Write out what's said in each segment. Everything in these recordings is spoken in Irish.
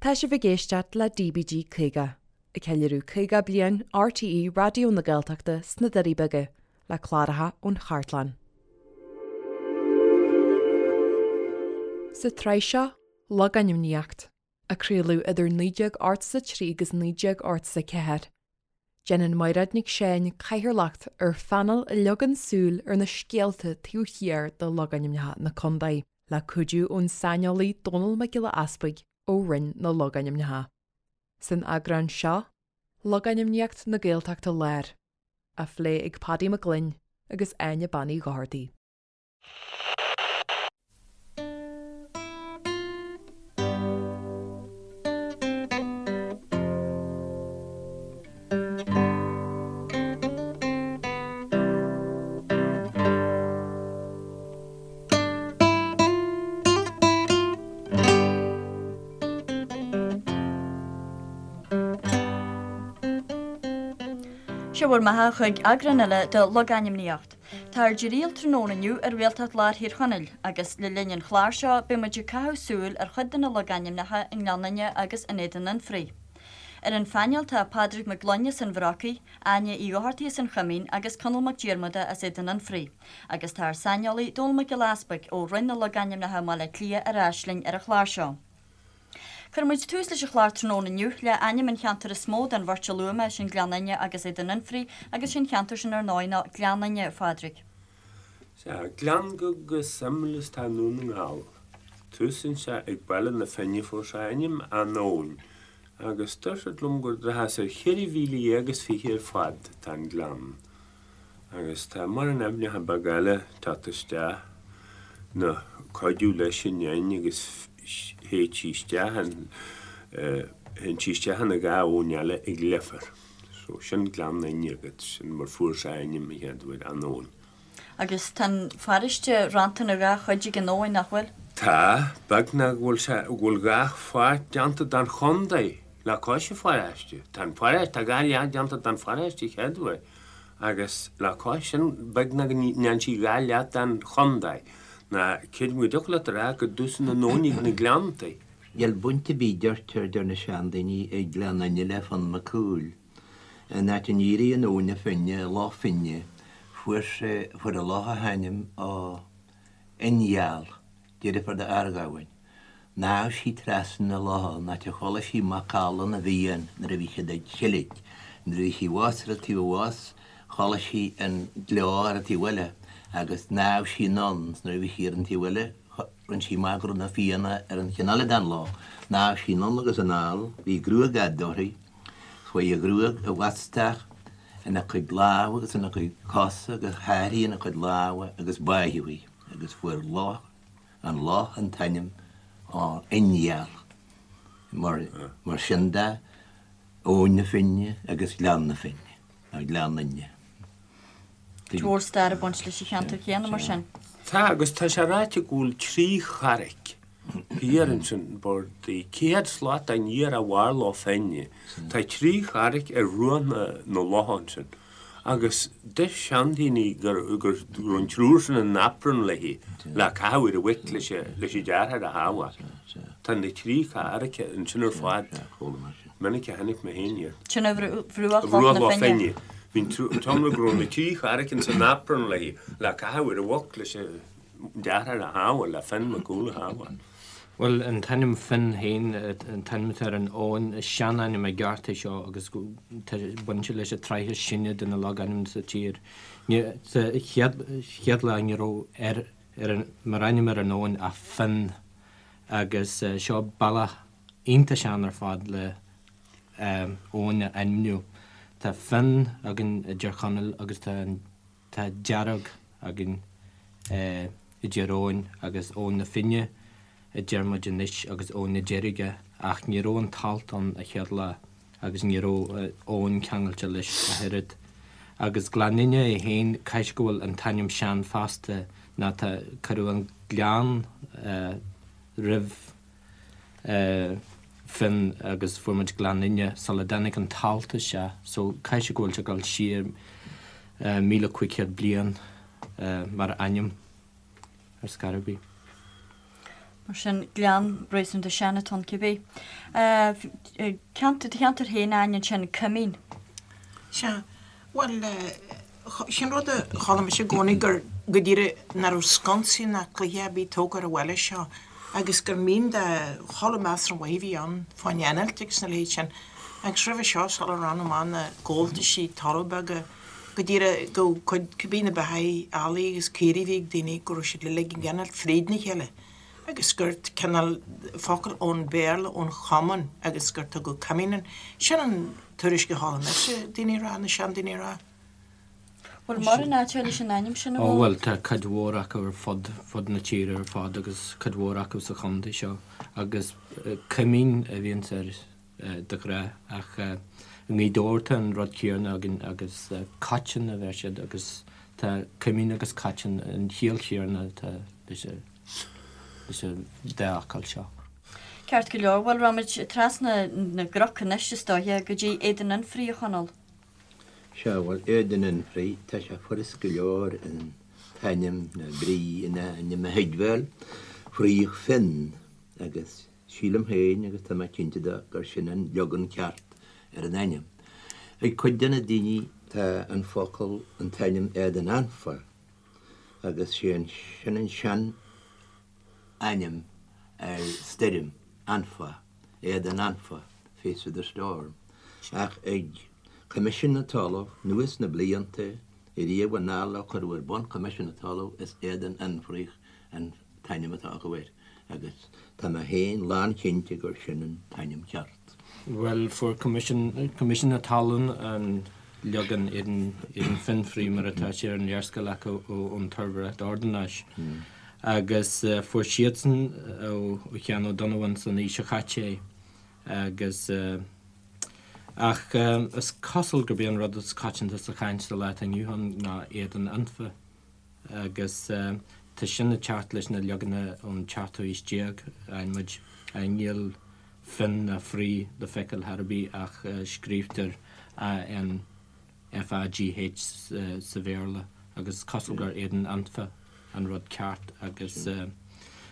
Tá sibh ag éisteacht le DBG 50, ag ceiliúradh 50 bliain RTÉ Raidió na Gaeltachta sna Doirí Beaga, le cláracha ón chartlann. Sa tsraith seo, Logainmníocht, a craoladh idir 1983 agus 1984, Déanann Mairéad Nic Seáin cathaoirleacht ar phainéal a leagann súil ar na scéalta taobh thiar de logainmneacha na contae, le cuidiú ón saineolaí Dónall Mac Giolla Easpaig ó Roinn na Logainmneacha. San eagrán seo, Logainmníocht na Gaeltachta Láir, á phlé ag Paddy Mac Gloinn agus Áine Bean Uí Dhochartaigh. Sé bhur mbeatha chuig eagrán eile de Logainmníocht. Tá ár dtriall tráthnóna inniu ar Ghaeltacht Lár Thír Chonaill agus le linn an chláir seo beidh muid ag caitheamh súil ar chuid de na logainmneacha i nGleann Fhinne agus in Éadan Fhionnfhraoigh. Ar an phainéal tá Pádraig Mac Gloinn as an Bhrocaigh, Áine Uí Dhochartaigh as an Choimín agus Conall Mac Diarmada as Éadan Fhionnfhraoigh. Agus tá ár saineolaí Dónall Mac Giolla Easpaig ó Roinn na Logainmneacha i mBaile Átha Cliath ar ais linn ar an chlár seo. Cuirfidh muid tús leis an chlár tráthnóna inniu le ainm an cheantair is mó den bheirt a luaigh mé, sin Gleann Fhinne agus Éadan Fhionnfhraoigh, agus sé'n cheantar sin ar ndóigh ná Gleann Fhinne, a Phádraig. Sea, gleann go suimiúil is atá i nDún na nGall. Túsann sé ag Baile na Finne, fuair sé a ainm ón abhainn, agus deir siad liom gur daichead is ar 14,020 ar fad atá an gleann. Agus tá mórán aibhneacha beaga eile ag teacht isteach ná cuidiú leis an fhinn agus théid sí isteach in, théann sí isteach ina dha abhainn eile ag Leifear. So sin Gleann Fhinne agat, sin mar fuair sé a ainm an chéad uair, an abhainn. Agus tá an pharóiste rannta ina dhá chuid ag an abhainn, nach bhfuil? Tá, beagnach go bhfuil sé, go bhfuil dhá pháirt déanta den chontae le cois an pharóiste. Tá an pharóiste, tá dhá leath déanta den pharóiste chéad uair. Agus le cois sin, beagnach go ndéanann sí dhá leath den chontae, ná creidim go dtiocfadh leat a rá go dtúsann an abhainn ag na Gleanntaí. Níl baint ar bith, deirtear, deir na seandaoine, ag Gleann Fhinne le Fionn Mac Cumhaill. An áit a n-éiríonn Abhainn na Finne, Loch Finne, fuair sé, fuair an loch a hainm ó Fhionngheal. Deirfiúr d'Fhearghamhain. Shnámh sí trasna na locha an áit a chuala sí macalla na bhFiann nuair a bhí siad ag seilg. Nuair a bhí sí abhus ar an taobh abhus chuala sí an gleo ar an taobh eile agus shnámh sí anonn 's nuair a bhí sí ar an taobh eile rinne sí amach go raibh na Fianna ar an cheann eile den loch. Shnámh sí anonn agus anall, bhí gruag fhada uirthi, chuaigh a gruag i bhfostach ina cuid lámha agus ina cuid cosa agus sháraigh ina cuid lámha agus báitheadh í. agus fuair loch an loch an t-ainm Fhionngheal. Mar sin de, Abhainn na Finne agus Gleann na Finne, nó Gleann Fhinne. Cuid mhór stair ag baint leis an cheantar céanna mar sin. Tá, agus tá sé ráite go bhfuil trí charraic thiar ansin, bord 100 slat aniar ó bharr Loch Finne. Tá trí charraic ar bhruach na locha ansin. Agus deir seandaoine go raibh an triúr sin in aprún léi le caitheamh ar an mhuic leis an deartháir a shábháil. Tá na trí charraic ansin ar fad. Minic a chonaic mé féin iad. Sin ar bhruach Loch na Finne. Bhí an t-iomrá go raibh na trí charraic ins an aprún léi le caitheamh ar an mhuc leis an deartháir a shábháil, le Fionn Mac Cumhaill a shábháil. Bhuel, an t-ainm Finn féin, an t-ainm atá ar an abhainn, is sean-ainm i gceart é seo agus tá baint leis an tsraith is sine de na logainmneacha sa tír. Sa chéad lá ní raibh ar, ar an, mar ainm ar an abhainn ach Finn agus seo bealach iontach sean ar fad le abhainn a ainmniú. Tá Finn againn i dTír Chonaill agus tá an. Tá Dearg againn i dTír Eoghain agus Abhainn na Finne a deir muid anois agus Abhainn na Deirge ach ní raibh an t-alt ann a chéad lá agus ní raibh abhainn ceangailte leis ach oiread. Agus Gleann Fhinne é féin, caithfidh go bhfuil an t-ainm sean fosta ná tá, cuireadh an gleann roimh Finn agus fuair muid Gleann Fhinne sula dtáinig an t-alt isteach so caithfidh sé go bhfuil sé ag dul siar 1,500 bliain mar ainm ar scor ar bith. Mar sin, gleann réasúnta sean atá ann cibé. Ceantar, do cheantar féin, Áine, ansin, Coimín. Sea, bhuel, sin rud a chuala mise i gcónaí gur go díreach nach raibh sconsaí ná cloiche ar bith tógtha ar an bhaile seo agus gur mín de chuile measartha mhaith a bhí ann fán innilt agus na leithéid sin. Agus roimhe seo, sula raibh amach na gabháltaisí talaimh beaga, go díreach go cuid cibé na beathaí eallaigh agus caoirigh a bhí ag daoine go raibh siad uilig ag innilt fríd na chéile agus gur cineál focal ón Bhéarla ón chommon agus gur tugadh coimín an sin an tuairisc a chuala mise daoine a rá, na seandaoine a rá. Bhfuil mórán áiteacha leis an ainm sin a Ó bhuel tá cuid mhór acu ar fud fud na tíre ar fad agus cuid mhór acu sa chontae seo agus coimín a bhíonns air de ghnáth ach i nGaoth Dobhair tá an rud céanna againn agus Cotton a bheir siad agus tá coimín agus Cotton an chiall chéanna atá leis an leis an dá fhocal seo. Ceart go leor, bhuel raghaimid trasna na gcnoc anois is dóiche go dtí Éadan Fhionnfhraoigh a Chonaill. Sea, bhuel Éadan Fhionnfhraoigh, tá sé furast go leor an t-ainm, nó brí an ainm a thuigbheáil, Fraoch Fionn agus Sílim féin, agus tá mé cinnte de, gur sin an leagan ceart ar an ainm. Ag cuid de na daoine tá an focal, an t-ainm Éadan Anfa, agus sé an, sin an sean ainm ar stoirm, Anfa, Éadan Anfa, face of the storm. Ach ag Coimisiún na Talmhan, anuas na blianta, ariamh anall ó cuireadh ar bun Coimisiún na Talmhan, is Éadan Fhionnfhraoich an t-ainm atá acu air agus tá mé féin lánchinnte gur sin an t-ainm ceart. Bhuel, fuair Coimisiún na Talún an leagan Éadan Fionnfraoigh mar atá sé ar an léarscáil acu ón tSuirbhéireacht Ordanáis agus fuair siadsan ó Sheán Ó Donnabháin san aois seo caite é agus ach is cosúil gurb é an rud is coitianta sa chaint sa lá atá inniu ann ná Éadan Anfa. agus tá sin ag teacht leis na leaganacha ón tseachtú haois déag, fhaigheann muid, níl Fionn ná Fraoigh le feiceáil chor ar bith ach scríobhtar AN FAGH sa Bhéarla agus is cosúil gur Éadan Anfa an rud ceart agus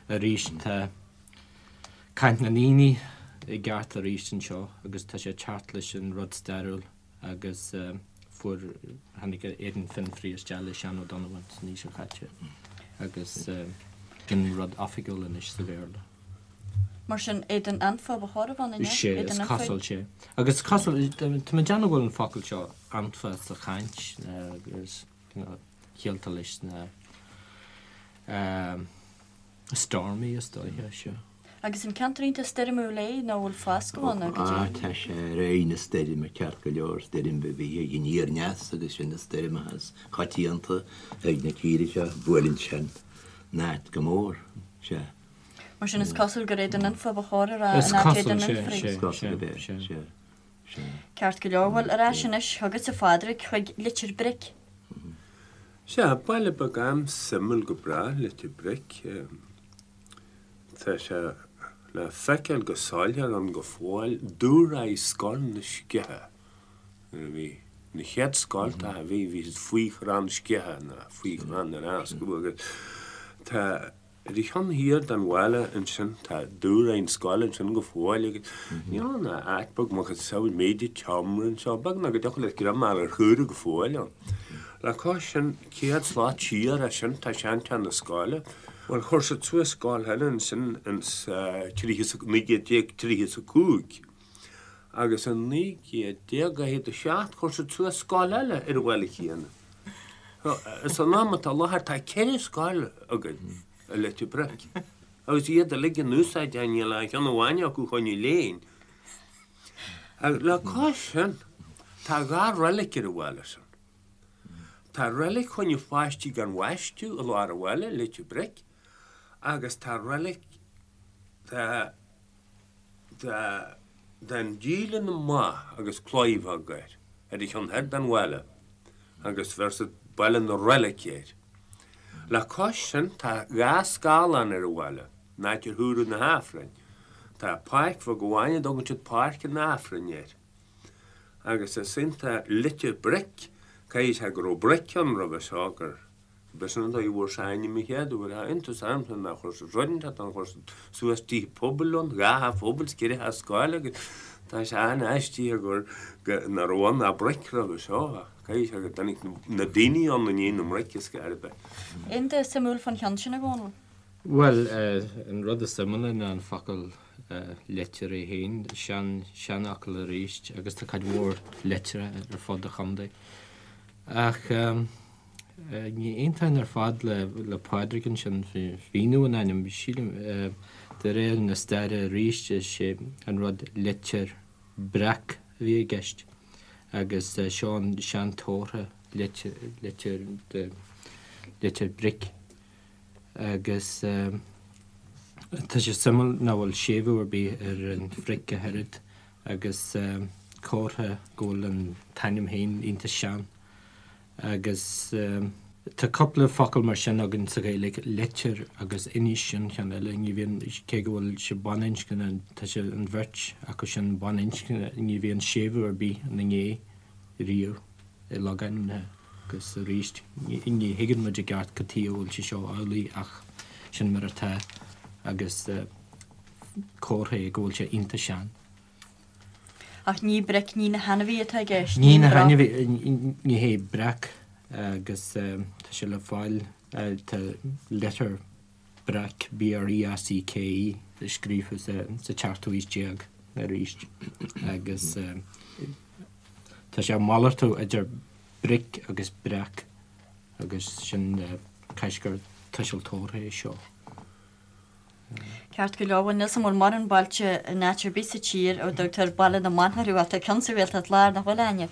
arís tá caint na ndaoine i gceart arís anseo agus tá sé ag teacht leis an rud stairiúil. agus fuair, tháinig Éadan Fionnfraoigh isteach le Seán Ó Donnabháin san aois seo caite agus sin rud oifigiúil anois sa Bhéarla. Mar sin, Éadan Anfa ba chóir a bheith ann, an ea? Sea, is cosúil, sea. Agus is cosúil, tá mé ag déanamh go bhfuil an focal seo Anfa sa chaint agus ciallta leis na Stormy is dóiche, sea. Agus an ceantar iontach stoirmiúil é nó bhfuil foscadh ann nó goidé? Ah, tá sé ar aghaidh na stoirme ceart go leor, stoirm a bhí ag aniar aneas agus sin na stoirmeacha is coitianta ag na tíre seo, buaileann sin an áit go mór, sea. Mar sin is cosúil gur Éadan Anfa ba chóir a rá in áit Éadan Fhionnfraoigh. Is cosúil gurb é, sea, sea, sea. Ceart go leor, bhuel ar ais anois chugatsa a Phádraig chuig Leitir Bric. Sea, baile beag an-suimiúil go breá, Leitir Bric. Tá sé le feiceáil go soiléir ann go fóill, dúshraith Scoil na Sceiche. Nuair a bhí na chéad scoltacha a bhí, bhí siad faoi chrann sceiche nó faoi chrann ar fháscadh agus tá ar an cheann thiar den bhaile ansin tá dúshraith na scoile ansin go fóill agus níl ann ach áit beag macasamhail méid an tseomra anseo, beagnach go dtiocfadh leat greim a fháil ar chaora go fóill ann. Le cois sin, 100 slat siar as sin tá seanteach na scoile. Bhuel, chuir siad suas scoil eile ansin ins 1935 agus in 1947 chuir siad suas scoil eile ar an bhaile chéanna. San am atá i láthair tá ceithre scoil againn i Leitir Bric agus iad uilig in úsáid, níl aon cheann amháin acu chun léinn. Le cois sin, tá dhá reilig ar an bhaile sin. Tá reilig choinne pháistí gan bhaisteadh i lár an bhaile, Leitir Bric, agus tá reilig de de den Díle na mBa agus claí bheag air, ar an cheann thoir den bhaile, agus bheir siad Baile na Reilice air. Le cois sin tá dhá scáthlán ar an bhaile, an áit ar húradh na hAifrinn. Tá páirc bheag amháin a dtugann siad Páirc an Aifrinn air. Agus is iontach Leitir Bric, caithfidh sé go raibh bric ann roimhe seo gur B'shin an dóigh a bhfuair sé a ainm an chéad uair. Tá iontas ormsa nár chuir siad rud inteacht ann, chuir siad suas tithe pobail ann, 2 theach phobail 's 4 theach scoile agus tá sé an-aisteach gur nach raibh ann ach broic roimhe seo ach caithfidh sé go dtáinig na daoine ann i ndiaidh na mbroic is scor ar bith. Aon rud suimiúil fán cheann sin, a Dhónaill? Bhuel, an rud is suimiúla ná an focal leitir é féin, sean, seanfhocal arís agus tá cuid mhór leitreacha ar fud an chontae. Ach ní aontóinn ar fad le Pádraig ansin faoi mhíniú an ainm. Sílim, de réir na staire arís, is é an rud leitir breac a bhí i gceist agus seo an seanchomhartha leitir, leitir, leitir bric agus tá sé suimiúil nach bhfuil séimhiú ar bith ar an bhric ach oiread agus comhartha go bhfuil an t-ainm féin iontach sean. Agus tá cúpla focal mar sin againn sa Ghaeilge, leitir agus inis, sin ceann eile, ní bhíonn, cé go bhfuil sé baininscne, tá sé, an bheirt acu sin baininscne, ní bhíonn séimhiú ar bith ina ndiaidh riamh i logainmneacha agus arís ní thuigeann muid i gceart cad chuige a bhfuil sé seo amhlaidh ach sin mar atá agus comhartha é go bhfuil sé iontach sean. Ach ní bric, ní na hainmhithe atá i gceist, ní na hainmhithe, ní hé breac agus tá sé le fáil, tá Leitir Breac, B-R-E-A-C-K-E, scríofa sa tseachtú haois déag arís agus tá sé ag malartú idir bric agus breac agus sin caithfidh gur tuiseal tabharthach é seo. Ceart go leor, bhuel níl 's a'm an bhfuil mórán bailte in áit ar bith sa tír a dtugtar Baile na mBan orthu ach tá ceann sa Ghaeltacht Láir, nach bhfuil, Áine?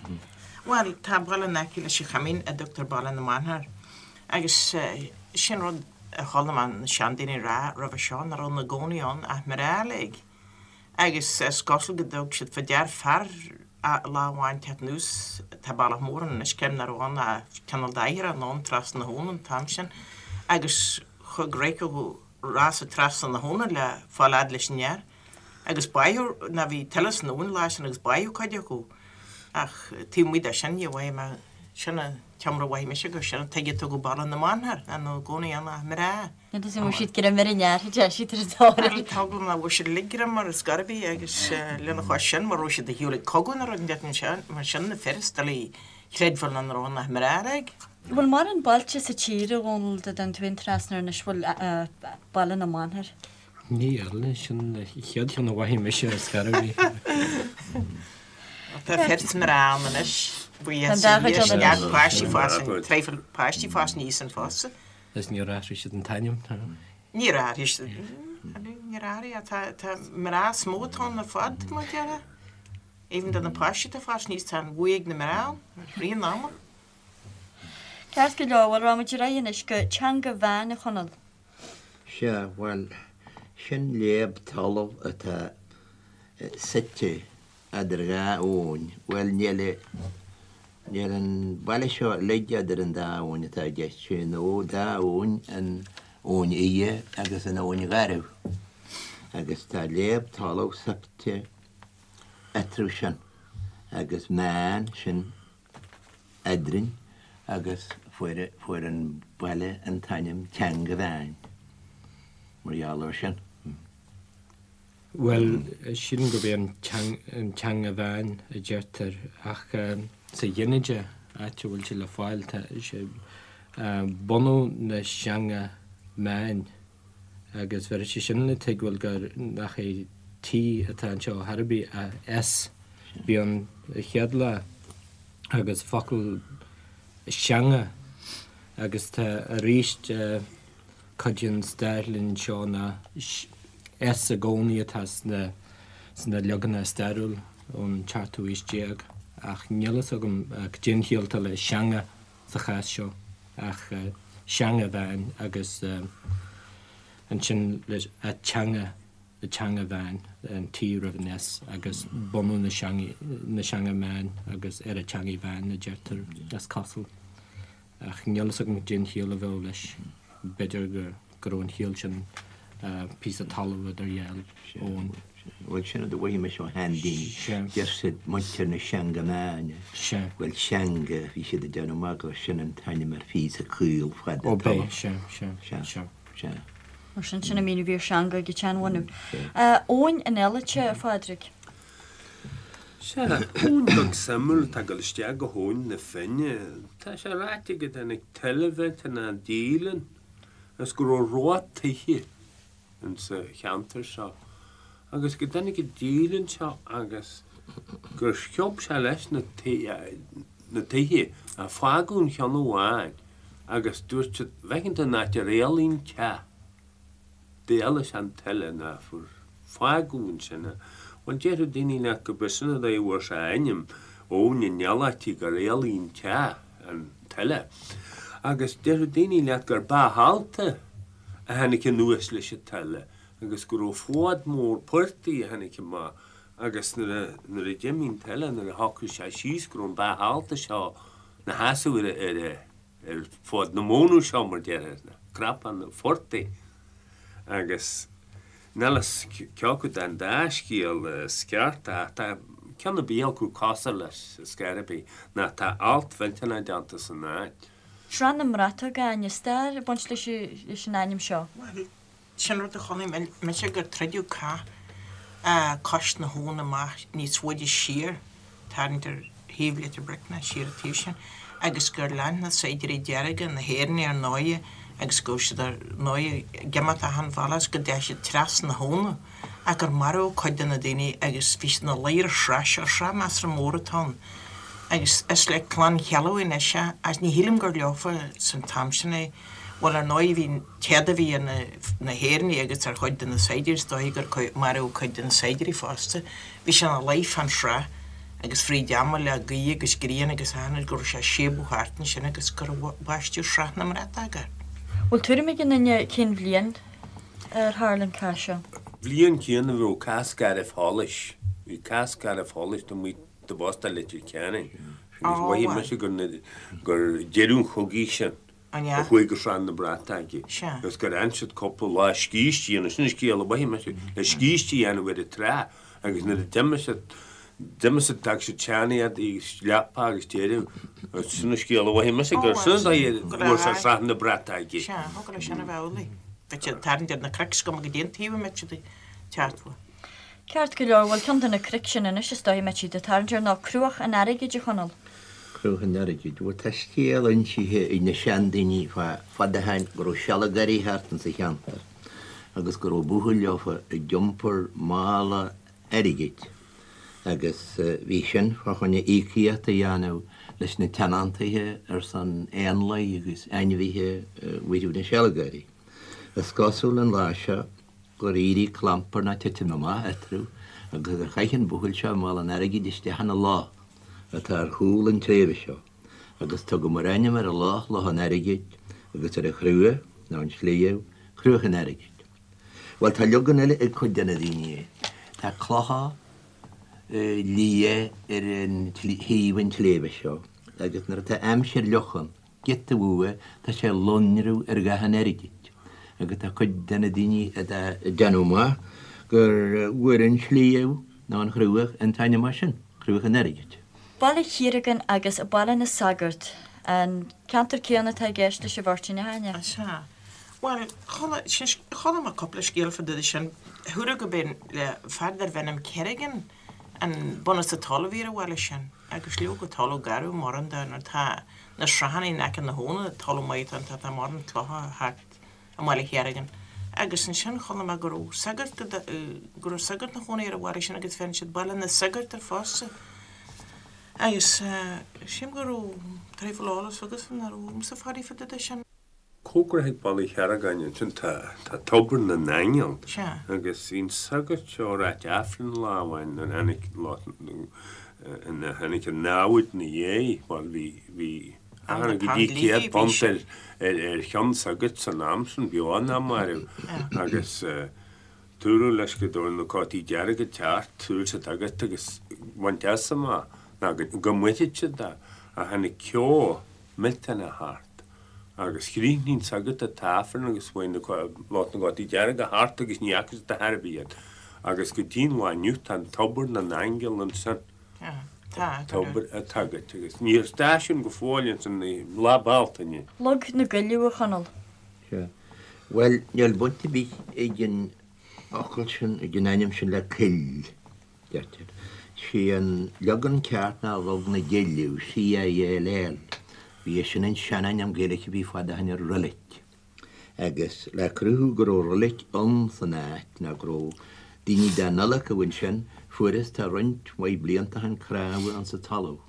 Bhuel, tá baile in aice leis an Choimín a dtugtar Baile na mBan air agus sin rud a chuala mé na seandaoine ag rá roimhe seo, nach raibh ina gcónaí ann ach mná uilig. Agus is cosúil go dtug siad fá dear fear lá amháin teacht anuas, tá bealach mór ann anois, creidim nach raibh ann ach cineál d'oighir anonn trasna na habhann an t-am sin agus chuaigh rachaidh rása trasna na habhna le fáil fhad leis an fhear agus báitheadh ná bhí tuile san abhainn an lá sin agus báitheadh cuid acu ach taobh amuigh de sin ní mhaífidh mé sin an t-iomrá a mhaífidh mise gur sin an tuige a tugadh Baile na mBan air ná ina gcónaí ann ach mná. Níl 'fhios a'm an raibh siad greim ar an fhear a deir siad ar an dtóir. Tá eagla orm nach bhfuair siad uilig greim air ar scor ar bith agus lena chois sin mura raibh siad ar shiúl ag cogadh nó rud inteacht mar sin na fir is doiligh chreidbheáil nach raibh ann ach mná uilig. Bhfuil mórán bailte sa tír, a Dhónaill, dá dtéann tú féin trasna air anois, bhfuil Baile na mBan air? Níl, sin an chéad cheann a mhothaigh mise ar scor ar bith. Tá fir 's mná ann anois, buíochas le Dia, is neart páistí ag fás, traidhfil páistí ag fás aníos ann fosta. Is níor athraigh siad an t-ainm? Níor athraigh siad, níor athraigh, tá mná is mó atá ann ar fad, mar a déarfá. Even do na páistí atá ag fás aníos, tá an bhuaidh ag na mná ann, rith an ama. Ceart go leor, bhuel rachaidh muid ar aghaidh anois go Teanga Mheáin, a Chonaill. Sea, bhuel, sin léab talaimh atá suite eadar dhá abhainn. Bhuel, níl, níl an baile seo uilig eadar an dá abhainn atá i gceist, sé an dá abhainn, an Abhainn Fhia agus an Abhainn Gharbh. Agus tá léab talaimh suite eatarthu sin, agus meán, sin eadrainn agus fuair fuair an baile an t-ainm Teanga Mheáin mar gheall air sin. Bhuel, sílim gurb é an an Teanga Mheáin a deirtear ach sa ghinideach, áit a bhfuil sé le fáil, tá sé bunadh na Seanga Meáin agus bheir sé sin le tuigbheáil gur nach é T atá anseo chor ar bith ach S. Bhí ann an chéad lá agus focal seanga agus tá arís cuid den stair linn anseo ná S i gcónaí atá sna sna leaganacha stairiúil ón tseachtú haois déag ach níl fhios agam cad é an chiall atá le seanga sa chás seo ach Seanga Mheáin agus ansin leis a teanga, a teanga mheáin, an T roimh an S agus bunadh na seangaí, na seanga meáin agus ar a teangaidh mheáin a deirtear is cosúil. Ach níl fhios agam cad é an chiall a bheadh leis. B'fhéidir go raibh an chiall sin Píosa talamh idir dhá abhainn. Bhuel, sin rud a mhothaigh mise ó sheandaoine. Deir siad muintir na Seanganna. Bhuel, seanga, bhí siad ag déanamh amach gur sin an t-ainm ar phíosa caol fada Ó, b'é, sea, sea, sea. Sea. Mar sin, sin an míniú a bhí ar seanga ag an tseanbhunú. Abhainn an Eilite, a Phádraig. Sea, abhainn beag suimiúil atá ag dul isteach go hAbhainn na Finne. Tá sé ráite go dtáinig tuile mhillteanach díleann agus go raibh ró tithe insa cheantar seo agus go dtáinig an díleann seo agus gur sciob sé leis na tithe ach fágadh an cheann amháin agus dúirt siad, bhfeiceann tú an áit ar éalaigh an teach. D'éalaigh sé an tuile ná fuair fágadh ansin é. Bhuel, déarfadh daoine leat go b'é sin an dóigh a bhfuair sé a ainm, Abhainn an Ealáití, gur éalaigh an teach, an tuile. Agus déarfadh daoine leat gur b'é ealta a tháinig anuas leis an tuile agus go raibh fód mór portaigh a tháinig amach agus nuair a, nuair a d'imigh an tuile, nuair a shocraigh sé síos go raibh an bá ealta seo 'na sheasamh ar a, ar a, ar fód na mónadh seo, mar déarfá, na cnapán an phortaigh, agus níl fhios cé acu den dá scéal is ceart ach tá ceann ar bith acu cosúil leis ar scor ar bith, ná tá alt mhillteanach déanta san áit. Srath na mBratach, a Áine, stair ag baint leis an ainm seo. Bhuel, Sin rud a chonaic mise gur troideadh cath cois na habhann amach níos faide siar, tarraingt ar thaobh Leitir Bric ná siar an taobh sin, agus gur lean na saighdiúirí dearga, na hÉireannaigh ar ndóighe, agus go raibh siad ar ndóighe ag imeacht achan bhealach is go dteachaigh siad trasna na habhna ach gur maraíodh cuid de na daoine agus bhí siad ina luí ar an srath seo, srath measartha mór atá ann. Agus is le Clann Cheallaigh anois é, ach ní shílim gur leofa san t-am sin é. Bhuel, ar ndóigh, bhí an t-éad a bhí ar na hÉireannaigh agus ar chuid de na saighdiúirí, is dóigh gur maraíodh cuid de na saighdiúirí fosta. Bhí sé ina luí fán srath agus fríd ama le gaoth agus grian agus achan rud go raibh sé ag síobadh thart ansin agus gur baisteadh Srath na mBratach air. Bhfuil tuairim ag aon duine cén bhliain ar tharla an cath seo? Bhliain chéanna a raibh cath Scairbh Sholais. Bhí cath Scairbh Sholais taobh amuigh de Bhoston Leitir Ceanainn agus mhothaigh mise gur deireadh an chogaidh sin. An ea? a chuaigh go Srath na Brataige Sea. agus gur fhan siad cúpla lá scíste a dhéanamh, sin an scéal a mhothaigh mise, le scíste a dhéanamh ar an trá agus nuair a d'imigh siad, d'imigh siad, d'fhág siad sean-éadaí agus leapa agus deireadh, agus sin an scéal a mhothaigh mise, gur sin an dóigh a bhfuair sé Srath na Brataige. Sea, thug leis sin a bheith amhlaidh. Bheadh siad ag tarraingt ar na cnoic is cuma goidé an taobh a mbeadh siad ag teacht uaidh. Ceart go leor, bhuel ceann de na cnoic sin anois is dóigh a mbeidh siad ag tarraingt air ná Cruach an Airgid, a Chonaill. Cruach an Airgid. Bhuel tá scéal insithe ag na seandaoine fá fad ó shoin go raibh sealgairí thart insa cheantar agus go raibh buachaill leofa ag iompar mála airgid agus bhí sin fá choinne íocaíocht a dhéanamh leis na tionóntaithe ar son éanlaith agus ainmhithe a mharbh na sealgairí. Is cosúil an lá seo gur éirigh clampar ná titim amach eatarthu agus gur chaith an buachaill seo mála an airgid isteach ina loch atá ar chúl an tsléibhe seo agus tugadh mar ainm ar an loch Loch an Airgid agus ar an chruaich, nó an sliabh, Cruach an Airgid. Bhuel, tá leagan eile ag cuid de na daoine. Tá clocha liath ar an thaobh an tsléibhe seo agus nuair atá aimsir fhliuch ann, giota uaidh, tá sé ag lonrú ar dhath an airgid agus tá cuid de na daoine ag déanamh amach gur bhfuair an sliabh nó an chruach an t-ainm as sin, Cruach an Airgid. Baile Chiaragáin agus Baile na Sagart, an ceantar céanna atá i gceist leis an bheirt sin, a Áine? Sea. Bhuel, chuala, sin, chuala mé cúpla scéal fá dtaobh de sin. Dúradh go b'é le fear darbh ainm Kerrigan an bunús an talamh a bhí ar an bhaile sin agus leoga talamh garbh mórán de nuair atá na srathanna in aice na habhna, talamh maith atá ann, tá mórán clocha thart i mBaile Chiaragáin. Agus ansin chuala mé go raibh sagart, go raibh sagart 'na chónaí ar an bhaile sin agus bheireann siad Baile na Sagart air fosta. Agus sílim go raibh traidhfil eolas agatsa nach raibh agamsa faraor fá dtaobh de sin. Cóngarach ag Baile Chiaragáin ansin tá Tobar na nAingeal Sea. agus bhí an sagart seo ag ráit Aifreann lá amháin nuair a tháinig nuair a tháinig an namhaid 'na dhiaidh, bhuel bhí bhí achan go dtí £100 ar ar ar cheann sagairt san am sin, beo ná marbh agus dúradh leis go raibh na cótaí dearga ag teacht, tabhair siad agat agus baint as amach ná go go mbainfeadh siad é ach tháinig ceo millteanach thart. Agus chríochnaigh an sagart an t-aifreann agus chuaigh na lucht na gcótaí dearga thart agus ní fhaca siad ar chor ar bith iad. Agus go dtí an lá inniu tá an tobar na n-aingeal ansin. Tá, Tobar an tsagairt agus níl stáisiún go fóill ansin i Lá Bealtaine. Log na gCuilleadh, a Chonaill. Sea. Bhuel, níl baint ar bith ag an fhocal sin, ag an ainm sin le coill, deirtear. Sé an leagan ceart ná Log na gCilleadh, C-I-L-L. Bhí sin an seanainm Gaeilge a bhí fad ó shin ar roilig. Agus le cruthú go raibh roilig ann san áit, nó go raibh daoine dá n-adhlacadh ansin, fuarthas tá roinnt mhaith blianta ó shin cnámha insa talamh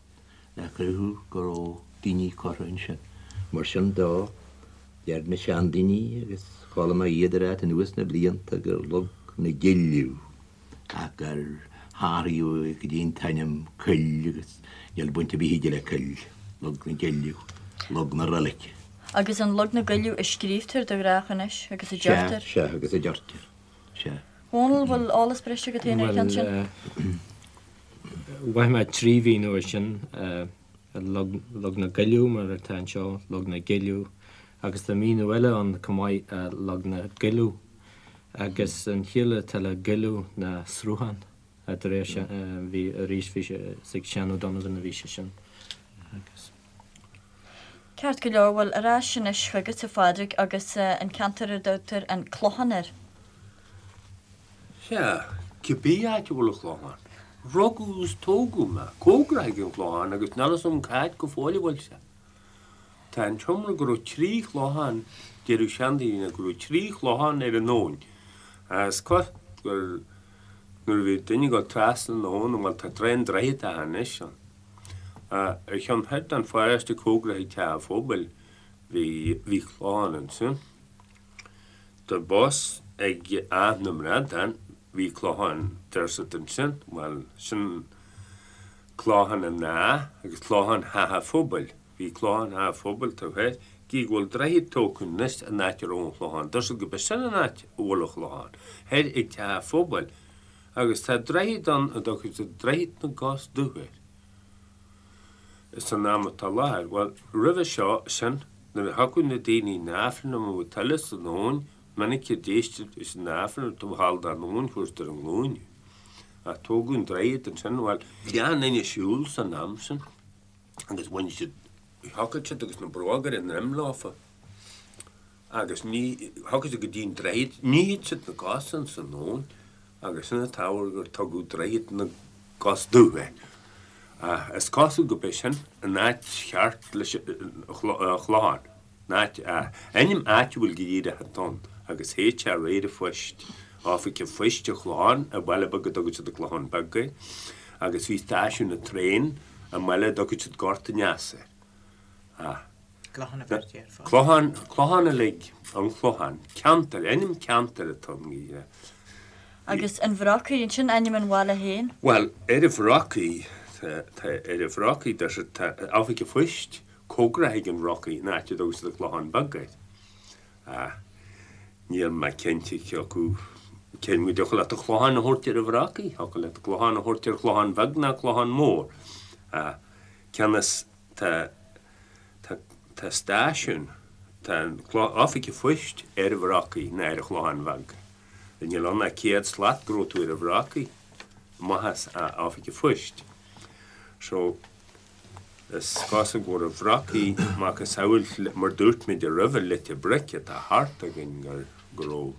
le cruthú go raibh daoine curtha ansin. Mar sin dó, deir na seandaoine, agus chuala mé iad ag ráit anuas na blianta, gur Log na gCilleadh ach gur hathraíodh go dtí an t-ainm coill agus níl baint ar bith aige le coill, Log na gCilleadh, Log na Roilice. Agus an Log na gCuilleadh a scríobhtar de ghnách anois agus a deirtear. Sea, sea, agus a deirtear, sea. Dhónaill, bhfuil eolas breise agat féin ar an cheann sin? Bhuel, mhaith mé trí mhíniú air sin, Log, Log na gCuilleadh mar atá anseo, Log na gCilleadh, agus tá míniú eile ann chomh maith, Log na gCuilleadh. Agus an chiall atá le goilleadh ná sruthán, de réir bhí arís bhí sé is ag Seán O'Donovan a bhí sé sin agus. Ceart go leor, bhuel ar ais anois chugat a Phádraig agus an ceantar ar dtugtar an Clochán air. Sea, cibé áit a bhfuil an Clochán. Rugadh is tógadh mé cóngarach ag an Chlochán agus níl fhios agam cá háit go fóill a bhfuil sé. Tá an t-iomrá go raibh trí chlochán, deireadh seandaoine go raibh trí chlochán ar an abhainn. Is cosúil gur nuair a bhí duine ag dul trasna na habhann, bhuel tá an droichead atá anois ann. Ar cheann thoir den pharóiste cóngarach ag teach an phobail bhí bhí clochán ansin. Tá bus ag Áth na mBradán, bhí clochán deir siad ansin, bhuel sin Clochán an Átha agus Clochán Theach an Phobail. Bhí Clochán Theach an Phobail taobh thoir, gidh go bhfuil droichead tógtha anois an áit a raibh an Chlochán. Deir siad gurb é sin an áit a bhfuil an Chlochán, thoir ag Teach an Phobail. Agus tá droichead ann a dtugann siad Droichead na gCos Dubh air. San am atá i láthair, bhuel, roimhe seo, sin, nuair a thiocfadh na daoine 'na Aifreann amuigh tuile san abhainn, minic a d'éistid leis an Aifreann taobh thall den abhainn, fuair siad ar a nglúine. Ach tógadh an droichead ansin, bhuel, bhí an-duine ag siúl san am sin agus bhain siad, thiocfadh siad agus na bróga ar a ndroim leofa agus ní, thiocfadh siad go dtí an droichead, nífeadh siad na cosa ins an abhainn agus sin an t-ábhar gur tugadh Droichead na gCos Dubh air. Ach is cosúil gurb é sin an áit cheart leis an Chlochán. Áit, ainm áitiúil go díreach atá ann agus théid sé réir an phoist, Oifig an Phoist an Chlocháin i mbaile beag a dtugann siad an Clochán Beag air agus bhí stáisiún an traein i mbaile a dtugann siad Gort an Easa air. Ah. Clochán a bheirtí air fós. Clochán, Clochán uilig, an Clochán. Ceantar, ainm ceantair atá ann go díreach. Agus an Bhrocaigh, an sin ainm an bhaile féin? Bhuel, ar an Bhrocaigh, tá, tá, ar an Bhrocaigh, deir siad, tá Oifig an Phoist cóngarach ag an Bhrocaigh, an áit a dtugann siad an Clochán Beag air. Ach níl mé cinnte cé acu cén go dtiocfadh leat an Clochán a thabhairt ar an Bhrocaigh, thiocfadh leat an Clochán a thabhairt ar Chlochán Bheag ná Clochán Mór. Ach cionn is tá, tá, tá stáisiún, tá an Oifig an Phoist ar an Bhrocaigh ná ar an Chlochán Bheag. Níl ann ach 100 slat go raibh tú ar an Bhrocaigh, amach as Oifig an Phoist. So. Is cosúil go raibh Bhrocaigh macasamhail mar dúirt muid roimhe Leitir Bric atá thart againn gur go raibh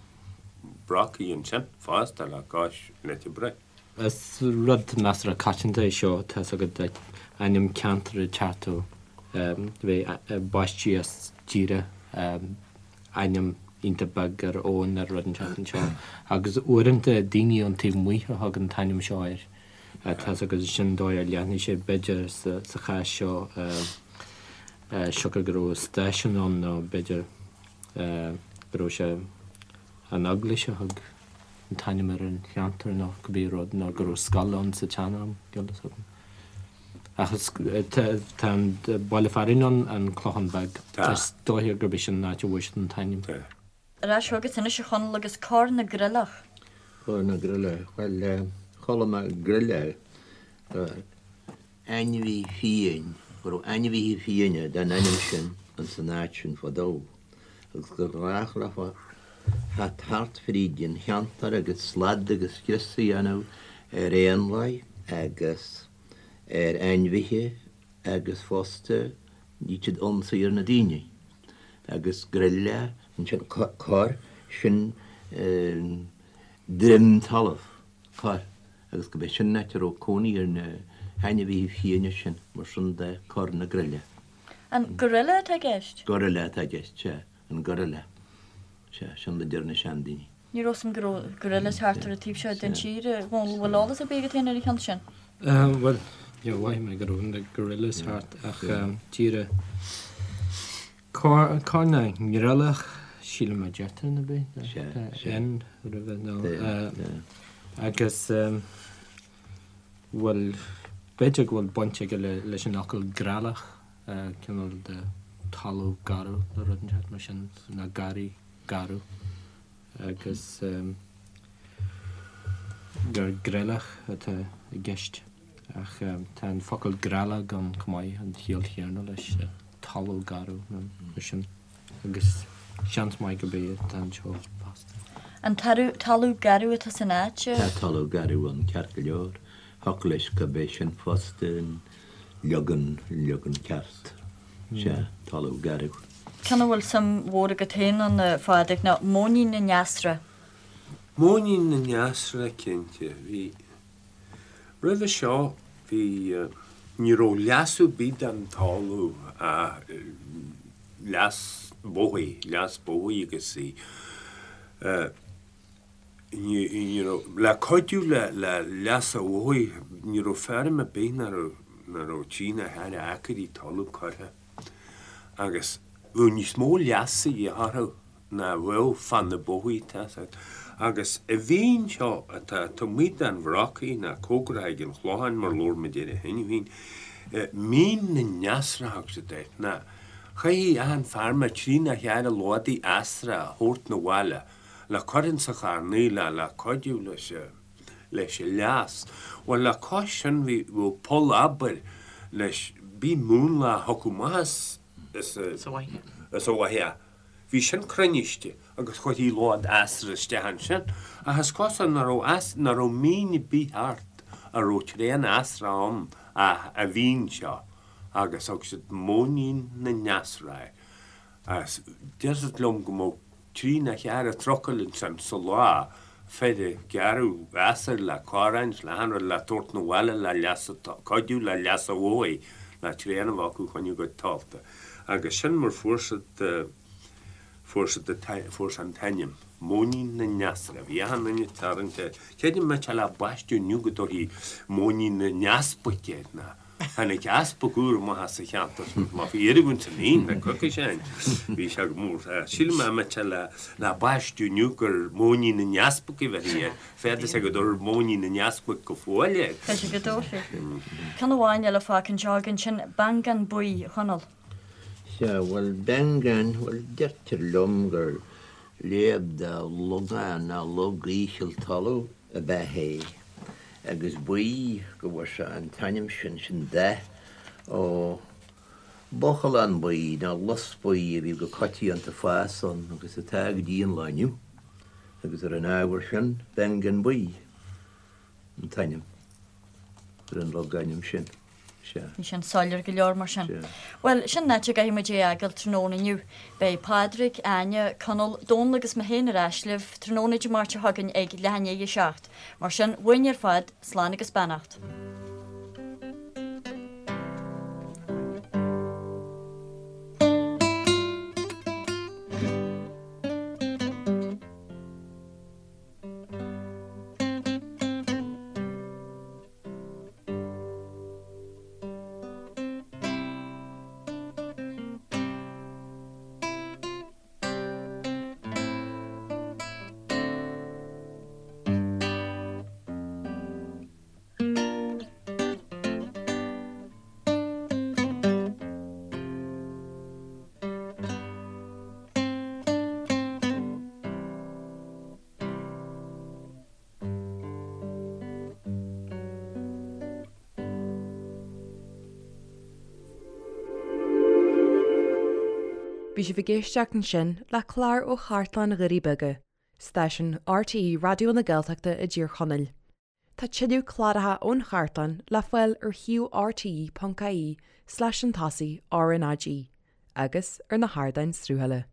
Brocaigh ansin fosta le cois Leitir Bric. Is rud measartha coitianta é seo, tá's agat, ainm ceantair ag teacht ó bheith baistí as díreach ainm iontach beag ar abhainn ar rud inteacht anseo agus uaireanta daoine ón taobh amuigh a thug an t-ainm seo air. Tá's agat sin dóigh ar leathnaigh sé b'fhéidir sa chás seo siocair go raibh stáisiún ann nó b'fhéidir go raibh sé an eaglais a thug an t-ainm ar an cheantar nó cibé rud nó go raibh scoil ann sa tsean-am, níl fhios agam. Ach tá an baile fearainn ann, an Clochán Beag. Is dóiche gurb é sin an áit a bhfuair siad an t-ainm. Ar ais chugat anois a Chonaill agus Corr na gCreilleach. Corr na gCreilleach, bhuel, chuala mé greille, ainmhí fiáin, go raibh ainmhithe fiáine den ainm sin ins an áit sin fadó agus gur ghnách leofa theacht thart fríd an cheantar agus slad agus scrios a dhéanamh ar éanlaith agus ar ainmhithe agus fosta bhíodh siad ionsaí ar na daoine agus greille ansin corr sin droim talamh corr agus go b'é sin an áit a raibh cónaí ar na hainmhithe fiáine sin mar sin de Corr na Greille. An gorilla atá i gceist? Gorilla atá i gceist, sea, an gorilla. Sea, sin a deir na seandaoine. Ní raibh 'fhios a'm go raibh gorillas thart ar an taobh seo den tír. A Dhónaill, bhfuil eolas ar bith agat féin ar an cheann sin? Bhuel, níor mhothaigh mé go raibh na gorillas thart ach díreach Corr na nGreallach, sílim a deirtear nó bith, N roimhe nó agus bhuel b'fhéidir go bhfuil baint aige leis an fhocal greallach, cineál de talamh garbh nó rud inteacht mar sin, nó garraí garbh. agus gur greallach atá i gceist ach tá an focal greallach ann chomh maith, an chiall chéanna leis, talamh garbh nó mar sin agus seans maith gurb é atá anseo fosta. An talamh garbh atá san áit? Tá talamh garbh ann ceart go leor. Thiocfadh leis gurb é sin fosta an leagan, leagan ceart. Sea, talamh garbh. Ceann a bhfuil suim mhór agat féin ann, a Phádraig, ná Móinín na nEasra. Móinín na nEasra, cinnte. Bhí, roimhe seo, bhí, ní raibh leasú ar bith den talamh, leas bóthair, leas bóthair agus í, ní raibh, le cuidiú le leas an bhóthair, ní raibh feirm ar bith nach raibh, nach raibh trí nó ceithre acraí talaimh curtha agus bheadh níos mó leasa a dhíth orthu ná a bheadh fá na bóithre, tá 'fhios agat. Agus an mhín seo atá taobh amuigh den Bhrocaigh ná cóngarach ag an Chlochán mar labhair muid air cheana féin, Mín na nEasra a thug siad air, ná chaithfeadh achan feirmeoir trí nó ceithre lódaí easra a thabhairt 'na bhaile le cur ins an charnaigh le le cuidiú leis leis an leas. Bhuel le cois sin bhí bheadh poll abair leis bhí múnla a thiocfadh amach as as Sa bhfaiche. as an bhfaiche. Bhí sin cruinniste agus chuirtí lód easra isteach ansin ach is cosúil nach raibh eas nach raibh mín ar bith thart a raibh tréan easra ann ach an mhín seo agus thug siad Móinín na nEasra air. Agus deirtear liom go mbeadh trí nó cheithre trucail ansin sa lá, fir ag gearradh easair le corráin 's le achan rud le tabhairt 'na bhaile le leas a, cuidiú le leas an bhóthair, le tréan a bheith acu choinne a gcuid talta. Agus sin mar fuair siad, fuair siad an, fuair sé an t-ainm, Móinín na nEasra. Bhí achan duine ag tarraingt air. Creidim má tá le baisteadh inniu go dtabharfaí Móinín na nEaspaig air ná. Tháinig easpag úr amach as an cheantar sin má bhí oiriúint san fhíon le coicís ó shin. Bhí sé go mór. Sílim má tá le le baisteadh inniu gur Móinín na nEaspag a bheifí air. Féadfaidh sé go dtabharfar Móinín na nEaspag go fóill air. B'fhéidir go dtabharfaí. Ceann amháin eile fágtha anseo againn, sin Beangán Buí, a Chonaill. Sea, bhuel, Beangán, bhuel, deirtear liom gur léamh de logán ná log íseal talaimh ab ea é, agus buí go bhfuair sé an t-ainm sin, sin dath, ó bhuachalán buí nó lus buí a bhí go coitianta ag fás ann agus atá go dtí an lá inniu, agus ar an ábhar sin, Beangán Buí an t-ainm ar an logainm sin. Sea. Bhí sin soiléir go leor mar sin. Sea. Bhuel, sin an áit a gcaithfidh muid é a fhágáil tráthnóna inniu. Beidh Pádraig, Áine, Conall, Dónall agus mé féin ar ais libh tráthnóna Dé Máirt seo chugainn ag leath i ndiaidh a 7. Mar sin, uainn ar fad, slán agus beannacht. Bhí sibh ag éisteacht ansin le clár ó Chartlann Dhoirí Beaga, stáisiún RTÉ Raidió na Gaeltachta i dTír Chonaill. Tá tuilleadh cláracha ón chartlann le fáil ar shuíomh rte.ie slash an tosaigh RnaG agus ar na hardáin sruthála.